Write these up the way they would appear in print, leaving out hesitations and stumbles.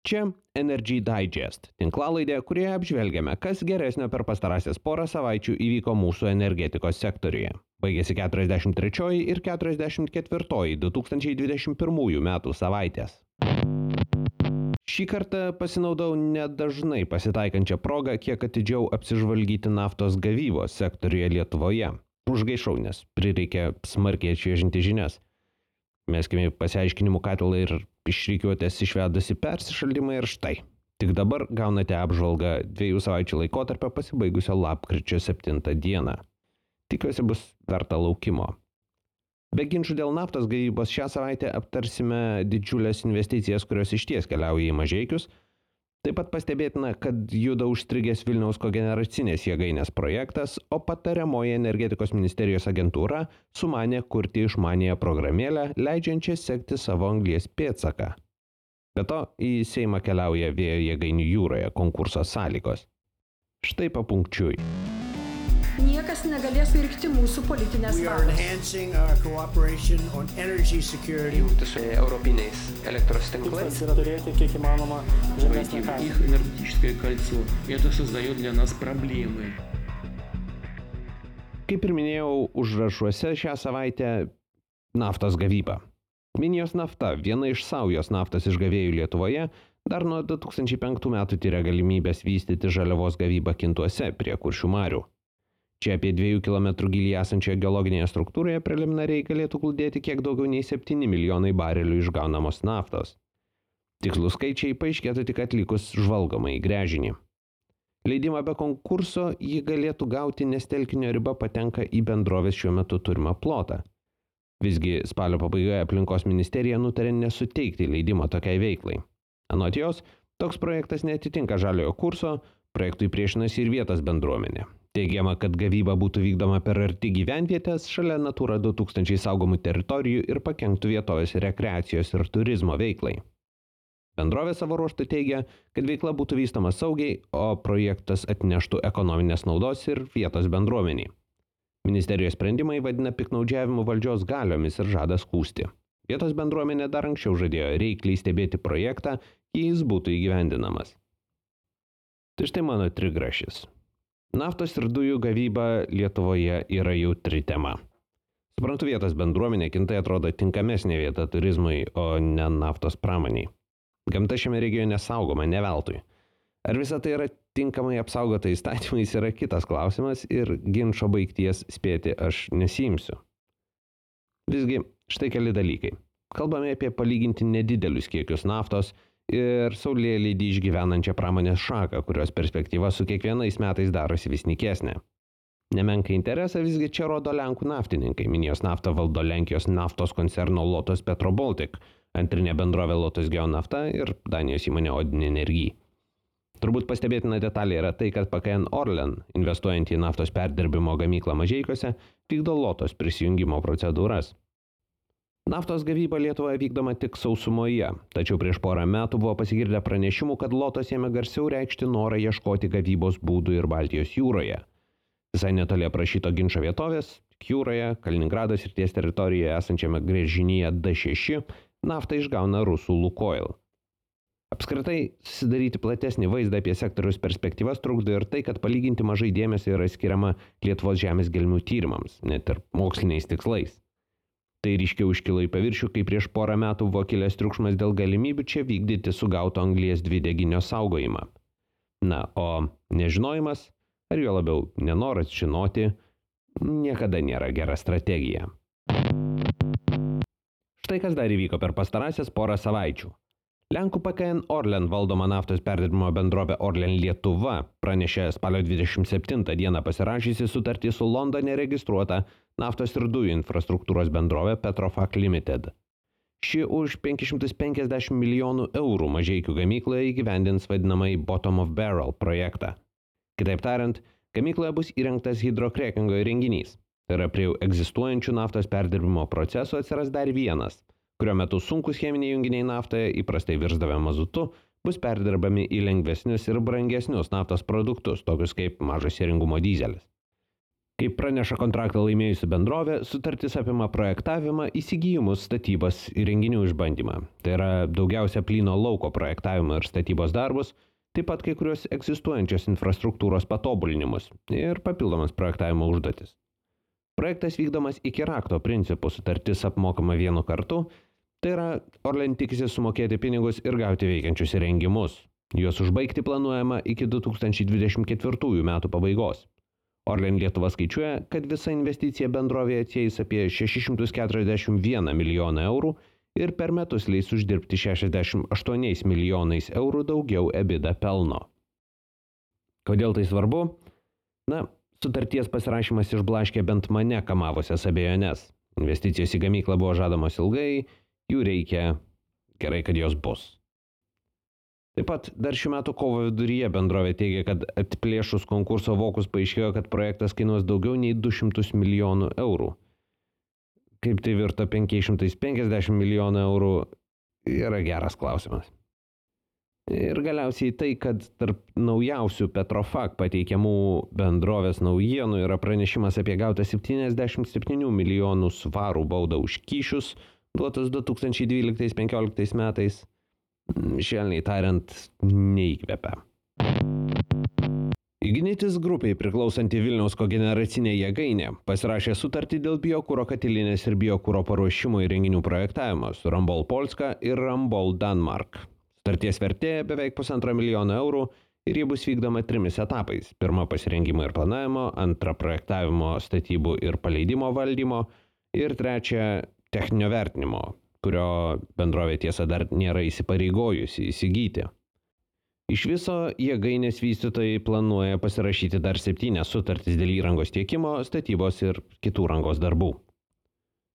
Čia Energy Digest, tinklalaidė, kurioje apžvelgiame, kas geresnio per pastarąsias porą savaičių įvyko mūsų energetikos sektoriuje. Baigėsi 43 ir 44 2021 metų savaitės. Šį kartą pasinaudau nedažnai pasitaikančią progą kiek atidžiau apsižvalgyti naftos gavybos sektoriuje Lietuvoje. Užgaišau, nes prireikė smarkiai atšviežinti žinias. Meskime pasiaiškinimų katilą ir išrikiuotės išvedusi persišaldymą ir štai. Tik dabar gaunate apžvalgą 2 savaičių laikotarpio pasibaigusio lapkričio 7 dieną. Tikiuosi bus verta laukimo. Be ginčų dėl naftos gavybos šią savaitę aptarsime didžiulės investicijas, kurios išties keliauja į Mažeikius. Taip pat pastebėtina, kad juda užstrigęs Vilniaus kogeneracinės jėgainės projektas, o patariamoji energetikos ministerijos agentūra sumanė kurti išmaniąją programėlę, leidžiančią sekti savo anglies pėdsaką. Be to, į Seimą keliauja vėjo jėgainių jūroje konkurso sąlygos. Štai papunkčiui. Niekas negalės pirkti mūsų politinės valios. Jungti su europiniais elektros tinklais. Tikslas yra turėti kiek įmanoma žemesnę kainą. Их энергетическое кольцо. Это создает для нас проблемы. Kaip ir minėjau, užrašuose šią savaitę naftos gavyba. Minijos nafta, viena iš saujos naftos išgavėjų Lietuvoje, dar nuo 2005 metų tyria galimybės vystyti žaliavos gavybą Kintuose prie Kuršių marių. Čia apie 2 km gilį esančioje geologinėje struktūroje preliminariai galėtų glūdėti kiek daugiau nei 7 milijonai barelių išgaunamos naftos. Tikslus skaičiai paaiškėtų tik atlikus žvalgomą į gręžinį. Leidimą be konkurso jį galėtų gauti, nes telkinio riba patenka į bendrovės šiuo metu turimą plotą. Visgi spalio pabaigoje aplinkos ministerija nutarė nesuteikti leidimo tokiai veiklai. Anot jos, toks projektas neatitinka žaliojo kurso, projektui priešinasi ir vietos bendruomenė. Teigiama, kad gavyba būtų vykdoma per arti gyvenvietės šalia Natura 2000 saugomų teritorijų ir pakenktų vietovės rekreacijos ir turizmo veiklai. Bendrovė savo ruožtu teigia, kad veikla būtų vystoma saugiai, o projektas atneštų ekonominės naudos ir vietos bendruomeniai. Ministerijos sprendimai vadina piktnaudžiavimu valdžios galiomis ir žada skųsti. Vietos bendruomenė dar anksčiau žadėjo reikliai stebėti projektą, jei jis būtų įgyvendinamas. Tai štai mano trigrašis. Naftos ir dujų gavyba Lietuvoje yra jautri tema. Suprantu, vietos bendruomenė Kintai atrodo tinkamesnė vieta turizmui, o ne naftos pramoniai. Gamta šiame regione saugoma ne veltui. Ar visa tai yra tinkamai apsaugota įstatymais yra kitas klausimas ir ginčo baigties spėti aš nesiimsiu. Visgi, štai keli dalykai. Kalbame apie palyginti nedidelius kiekius naftos ir saulėlydį išgyvenančią pramonės šaką, kurios perspektyva su kiekvienais metais darosi vis nykesnė. Nemenką interesą visgi čia rodo Lenkų naftininkai. Minijos naftą valdo Lenkijos naftos koncerno Lotos Petro Baltic, antrinė bendrovė Lotos Geonafta ir Danijos įmonė Odin Energy. Turbūt pastebėtina detalė yra tai, kad PKN Orlen, investuojant į naftos perdirbimo gamyklą Mažeikiuose, vykdo Lotos prisijungimo procedūras. Naftos gavyba Lietuvoje vykdoma tik sausumoje, tačiau prieš porą metų buvo pasigirdę pranešimų, kad Lotos ėmė garsiau reikšti norą ieškoti gavybos būdų ir Baltijos jūroje. Visai netoli aprašyto ginčo vietovės, jūroje, Kaliningrado srities teritorijoje esančiame gręžinyje D6, naftą išgauna rusų Lukoil. Apskritai, susidaryti platesnį vaizdą apie sektoriaus perspektyvas trukdo ir tai, kad palyginti mažai dėmesio yra skiriama Lietuvos žemės gelmių tyrimams, net ir moksliniais tikslais. Tai ryškiau iškilo į paviršių, kai prieš porą metų buvo kilęs triukšmas dėl galimybių čia vykdyti sugauto anglies dvideginio saugojimą. Na, o nežinojimas, ar jo labiau nenoras žinoti, niekada nėra gera strategija. Štai kas dar įvyko per pastarąsias porą savaičių. Lenkų PKN Orlen valdoma naftos perdirbimo bendrovė Orlen Lietuva pranešė spalio 27 dieną pasirašysi sutartį su Londone registruota naftos ir dujų infrastruktūros bendrovė Petrofac Limited. Ši už 550 milijonų eurų Mažeikių gamykloje įgyvendins vadinamąjį Bottom of Barrel projektą. Kitaip tariant, gamykloje bus įrengtas hidrokrekingo įrenginys. Tai yra prie egzistuojančių naftos perdirbimo procesų atsiras dar vienas, kurio metu sunkus cheminiai junginiai naftoje įprastai virsdavę mazutu, bus perdirbami į lengvesnius ir brangesnius naftos produktus, tokius kaip mažo sėringumo dyzelis. Kaip praneša kontraktą laimėjusi bendrovė, sutartis apima projektavimą, įsigijimus, statybas ir renginių išbandymą. Tai yra daugiausia plyno lauko projektavimo ir statybos darbus, taip pat kai kurios egzistuojančios infrastruktūros patobulinimus ir papildomas projektavimo užduotis. Projektas vykdomas iki rakto principų, sutartis apmokama vienu kartu, tai yra Orlen tikisi sumokėti pinigus ir gauti veikiančius įrengimus. Juos užbaigti planuojama iki 2024 metų pabaigos. Orlen Lietuva skaičiuoja, kad visa investicija bendrovėje atsieis apie 641 milijoną eurų ir per metus leis uždirbti 68 milijonais eurų daugiau EBITDA pelno. Kodėl tai svarbu? Sutarties pasirašymas išblaškė bent mane kamavusias abejones. Investicijos į gamyklą buvo žadamos ilgai, jų reikia, gerai, kad jos bus. Taip pat dar šių metų kovo viduryje bendrovė teigia, kad atplėšus konkurso vokus paaiškėjo, kad projektas kainuos daugiau nei 200 milijonų eurų. Kaip tai virto 550 milijonų eurų, yra geras klausimas. Ir galiausiai tai, kad tarp naujausių Petrofac pateikiamų bendrovės naujienų yra pranešimas apie gautą 77 milijonų svarų baudą už kyšius, duotus 2012-2015 metais. Švelniai tariant, neįkvepia. Ignitis grupiai priklausanti Vilniaus kogeneracinė jėgainė pasirašė sutartį dėl biokuro katilinės ir biokuro paruošimo įrenginių projektavimo su Rambol Polska ir Rambol Danmark. Sutarties vertė beveik 1,5 milijono eurų ir ji bus vykdoma 3 etapais. Pirma pasirengimo ir planavimo, antra projektavimo, statybų ir paleidimo valdymo ir trečia techninio vertinimo, kurio bendrovė tiesa dar nėra įsipareigojusi įsigyti. Iš viso jėgainės vystytojai planuoja pasirašyti dar 7 sutartis dėl įrangos tiekimo, statybos ir kitų rangos darbų.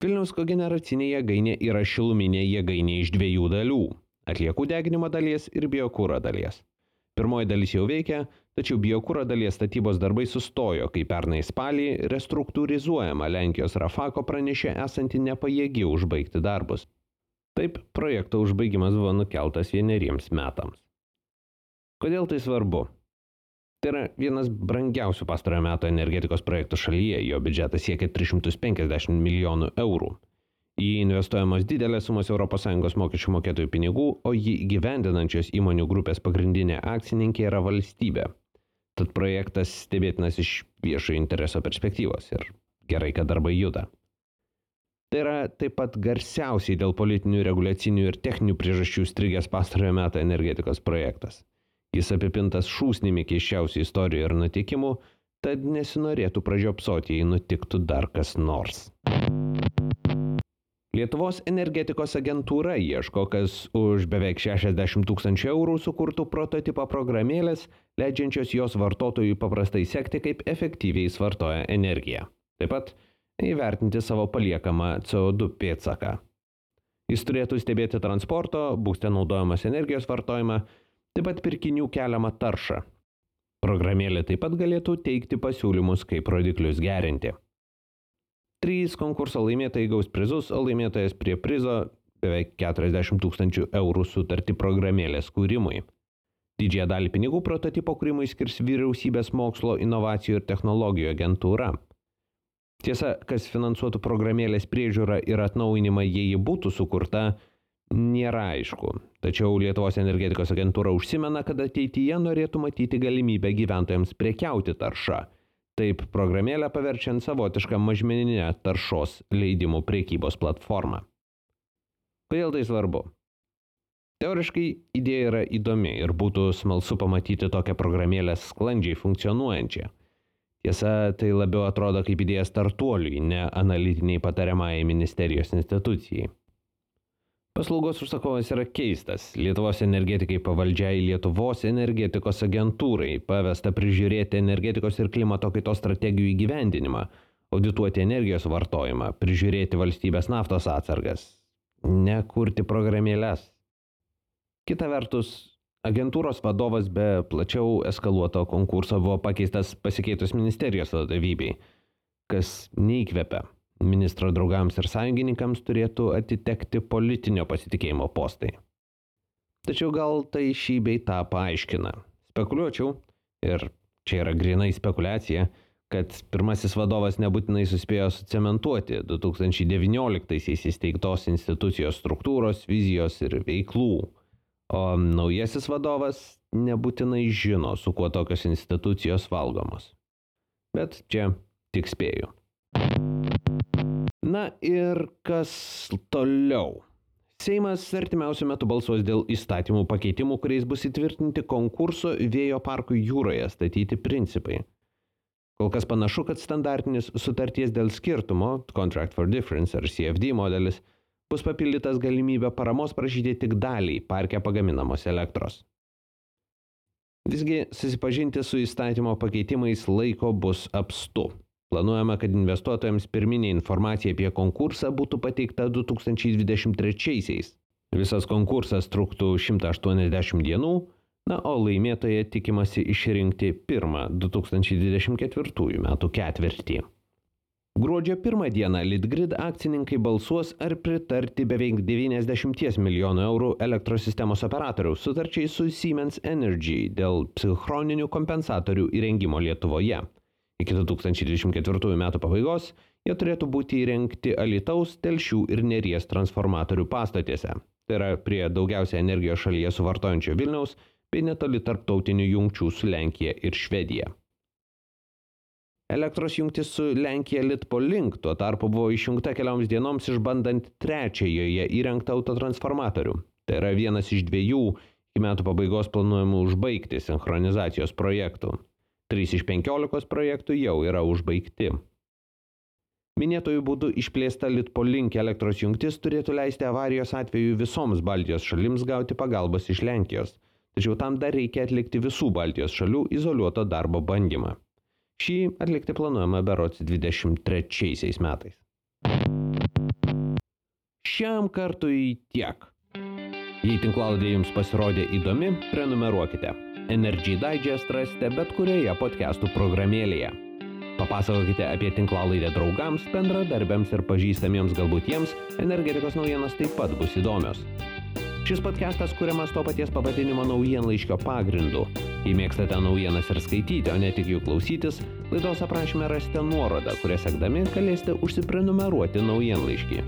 Vilniaus kogeneracinė jėgainė yra šiluminė jėgainė iš 2 dalių – atliekų deginimo dalies ir biokuro dalies. Pirmoji dalis jau veikia, tačiau biokuro dalies statybos darbai sustojo, kai pernai spalį restruktūrizuojama Lenkijos Rafako pranešė esanti nepajėgi užbaigti darbus. Taip, projekto užbaigimas buvo nukeltas 1 metams. Kodėl tai svarbu? Tai yra vienas brangiausių pastarojo meto energetikos projektų šalyje, jo biudžetas siekia 350 milijonų eurų. Į jį investuojamos didelės sumos ES mokesčių mokėtojų pinigų, o jį įgyvendinančios įmonių grupės pagrindinė akcininkė yra valstybė. Tad projektas stebėtinas iš viešojo intereso perspektyvos ir gerai, kad darbai juda. Tai yra taip pat garsiausiai dėl politinių, reguliacinių ir techninių priežasčių strigęs pastarojo meto energetikos projektas. Jis apipintas šūsnimi keisčiausių istorijų ir nutikimų, tad nesinorėtų pražiopsoti, jei nutiktų dar kas nors. Lietuvos energetikos agentūra ieško, kas už beveik 60 000 eurų sukurtų prototipą programėlės, leidžiančios jos vartotojui paprastai sekti, kaip efektyviai suvartoja energiją. Taip pat įvertinti savo paliekamą CO2 pėdsaką. Jis turėtų stebėti transporto, būste naudojamas energijos vartojimą, taip pat pirkinių keliamą taršą. Programėlė taip pat galėtų teikti pasiūlymus, kaip rodiklius gerinti. 3 konkurso laimėtojai gaus prizus, o laimėtojas prie prizo beveik 40 000 eurų sutartį programėlės kūrimui. Didžiąją dalį pinigų prototipo kūrimui skirs Vyriausybės mokslo, inovacijų ir technologijų agentūra. Tiesa, kas finansuotų programėlės priežiūrą ir atnaujinimą, jei ji būtų sukurta, nėra aišku. Tačiau Lietuvos energetikos agentūra užsimena, kad ateityje norėtų matyti galimybę gyventojams prekiauti taršą. Taip programėlę paverčiant savotišką mažmeninę taršos leidimų prekybos platformą. Kodėl tai svarbu? Teoriškai idėja yra įdomi ir būtų smalsu pamatyti tokią programėlę sklandžiai funkcionuojančią. Tiesa, tai labiau atrodo kaip idėja startuoliui, ne analitiniai patariamajai ministerijos institucijai. Paslaugos užsakovas yra keistas. Lietuvos energetikai pavaldžiai Lietuvos energetikos agentūrai pavesta prižiūrėti energetikos ir klimato kaitos strategijų įgyvendinimą, audituoti energijos vartojimą, prižiūrėti valstybės naftos atsargas, ne kurti programėles. Kita vertus, agentūros vadovas be plačiau eskaluoto konkurso buvo pakeistas pasikeitus ministerijos vadovybei, kas neįkvepia. Ministro draugams ir sąjungininkams turėtų atitekti politinio pasitikėjimo postai. Tačiau gal tai šį bei tą paaiškina. Spekuliuočiau, ir čia yra grynai spekulacija, kad pirmasis vadovas nebūtinai suspėjo sucementuoti 2019-aisiais įsteigtos institucijos struktūros, vizijos ir veiklų, o naujasis vadovas nebūtinai žino, su kuo tokios institucijos valgomos. Bet čia tik spėju. Na ir kas toliau? Seimas artimiausiu metu balsuos dėl įstatymų pakeitimų, kuriais bus įtvirtinti konkurso vėjo parkų jūroje statyti principai. Kol kas panašu, kad standartinis sutarties dėl skirtumo, Contract for Difference ar CFD modelis, bus papildytas galimybę paramos prašyti tik daliai parke pagaminamos elektros. Visgi susipažinti su įstatymo pakeitimais laiko bus apstu. Planuojama, kad investuotojams pirminė informacija apie konkursą būtų pateikta 2023-aisiais. Visas konkursas truktų 180 dienų, na, o laimėtoje tikimasi išrinkti pirmą 2024 metų ketvirtį. Gruodžio 1 dieną Litgrid akcininkai balsuos ar pritarti beveik 90 milijonų eurų elektros sistemos operatoriaus sutarčiai su Siemens Energy dėl psichroninių kompensatorių įrengimo Lietuvoje. Iki 2024 metų pabaigos jie turėtų būti įrengti Alytaus, Telšių ir Neries transformatorių pastotėse. Tai yra prie daugiausia energijos šalyje suvartojančio Vilniaus bei netoli tarptautinių jungčių su Lenkija ir Švedija. Elektros jungtis su Lenkija Litpolink tuo tarpu buvo išjungta kelioms dienoms išbandant trečiąjoje įrengtą autotransformatorių. Tai yra vienas iš 2 iki metų pabaigos planuojamų užbaigti sinchronizacijos projektų. 3 iš 15 projektų jau yra užbaigti. Minėtojų būdų išplėsta Litpolink elektros jungtis turėtų leisti avarijos atveju visoms Baltijos šalims gauti pagalbos iš Lenkijos, tačiau tam dar reikia atlikti visų Baltijos šalių izoliuoto darbo bandymą. Šį atlikti planuojama berods 23 metais. Šiam kartui tiek. Jei tinklalaidė jums pasirodė įdomi, prenumeruokite. Energy Digest rasite bet kurioje podcastų programėlėje. Papasakokite apie tinklalaidę draugams, bendradarbiams ir pažįstamiems, galbūt jiems energetikos naujienos taip pat bus įdomios. Šis podcastas kuriamas to paties pavadinimo naujienlaiškio pagrindu. Jei mėgstate naujienas ir skaityti, o ne tik jų klausytis, laidos aprašyme rasite nuorodą, kurią sekdami galėsite užsiprenumeruoti naujienlaiškį.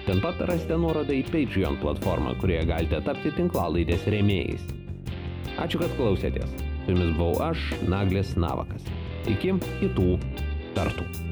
Ten pat rasite nuorodą į Patreon platformą, kurioje galite tapti tinklalaidės rėmėjais. Ačiū, kad klausėtės. Su jumis buvau aš, Naglis Navakas. Iki kitų kartų.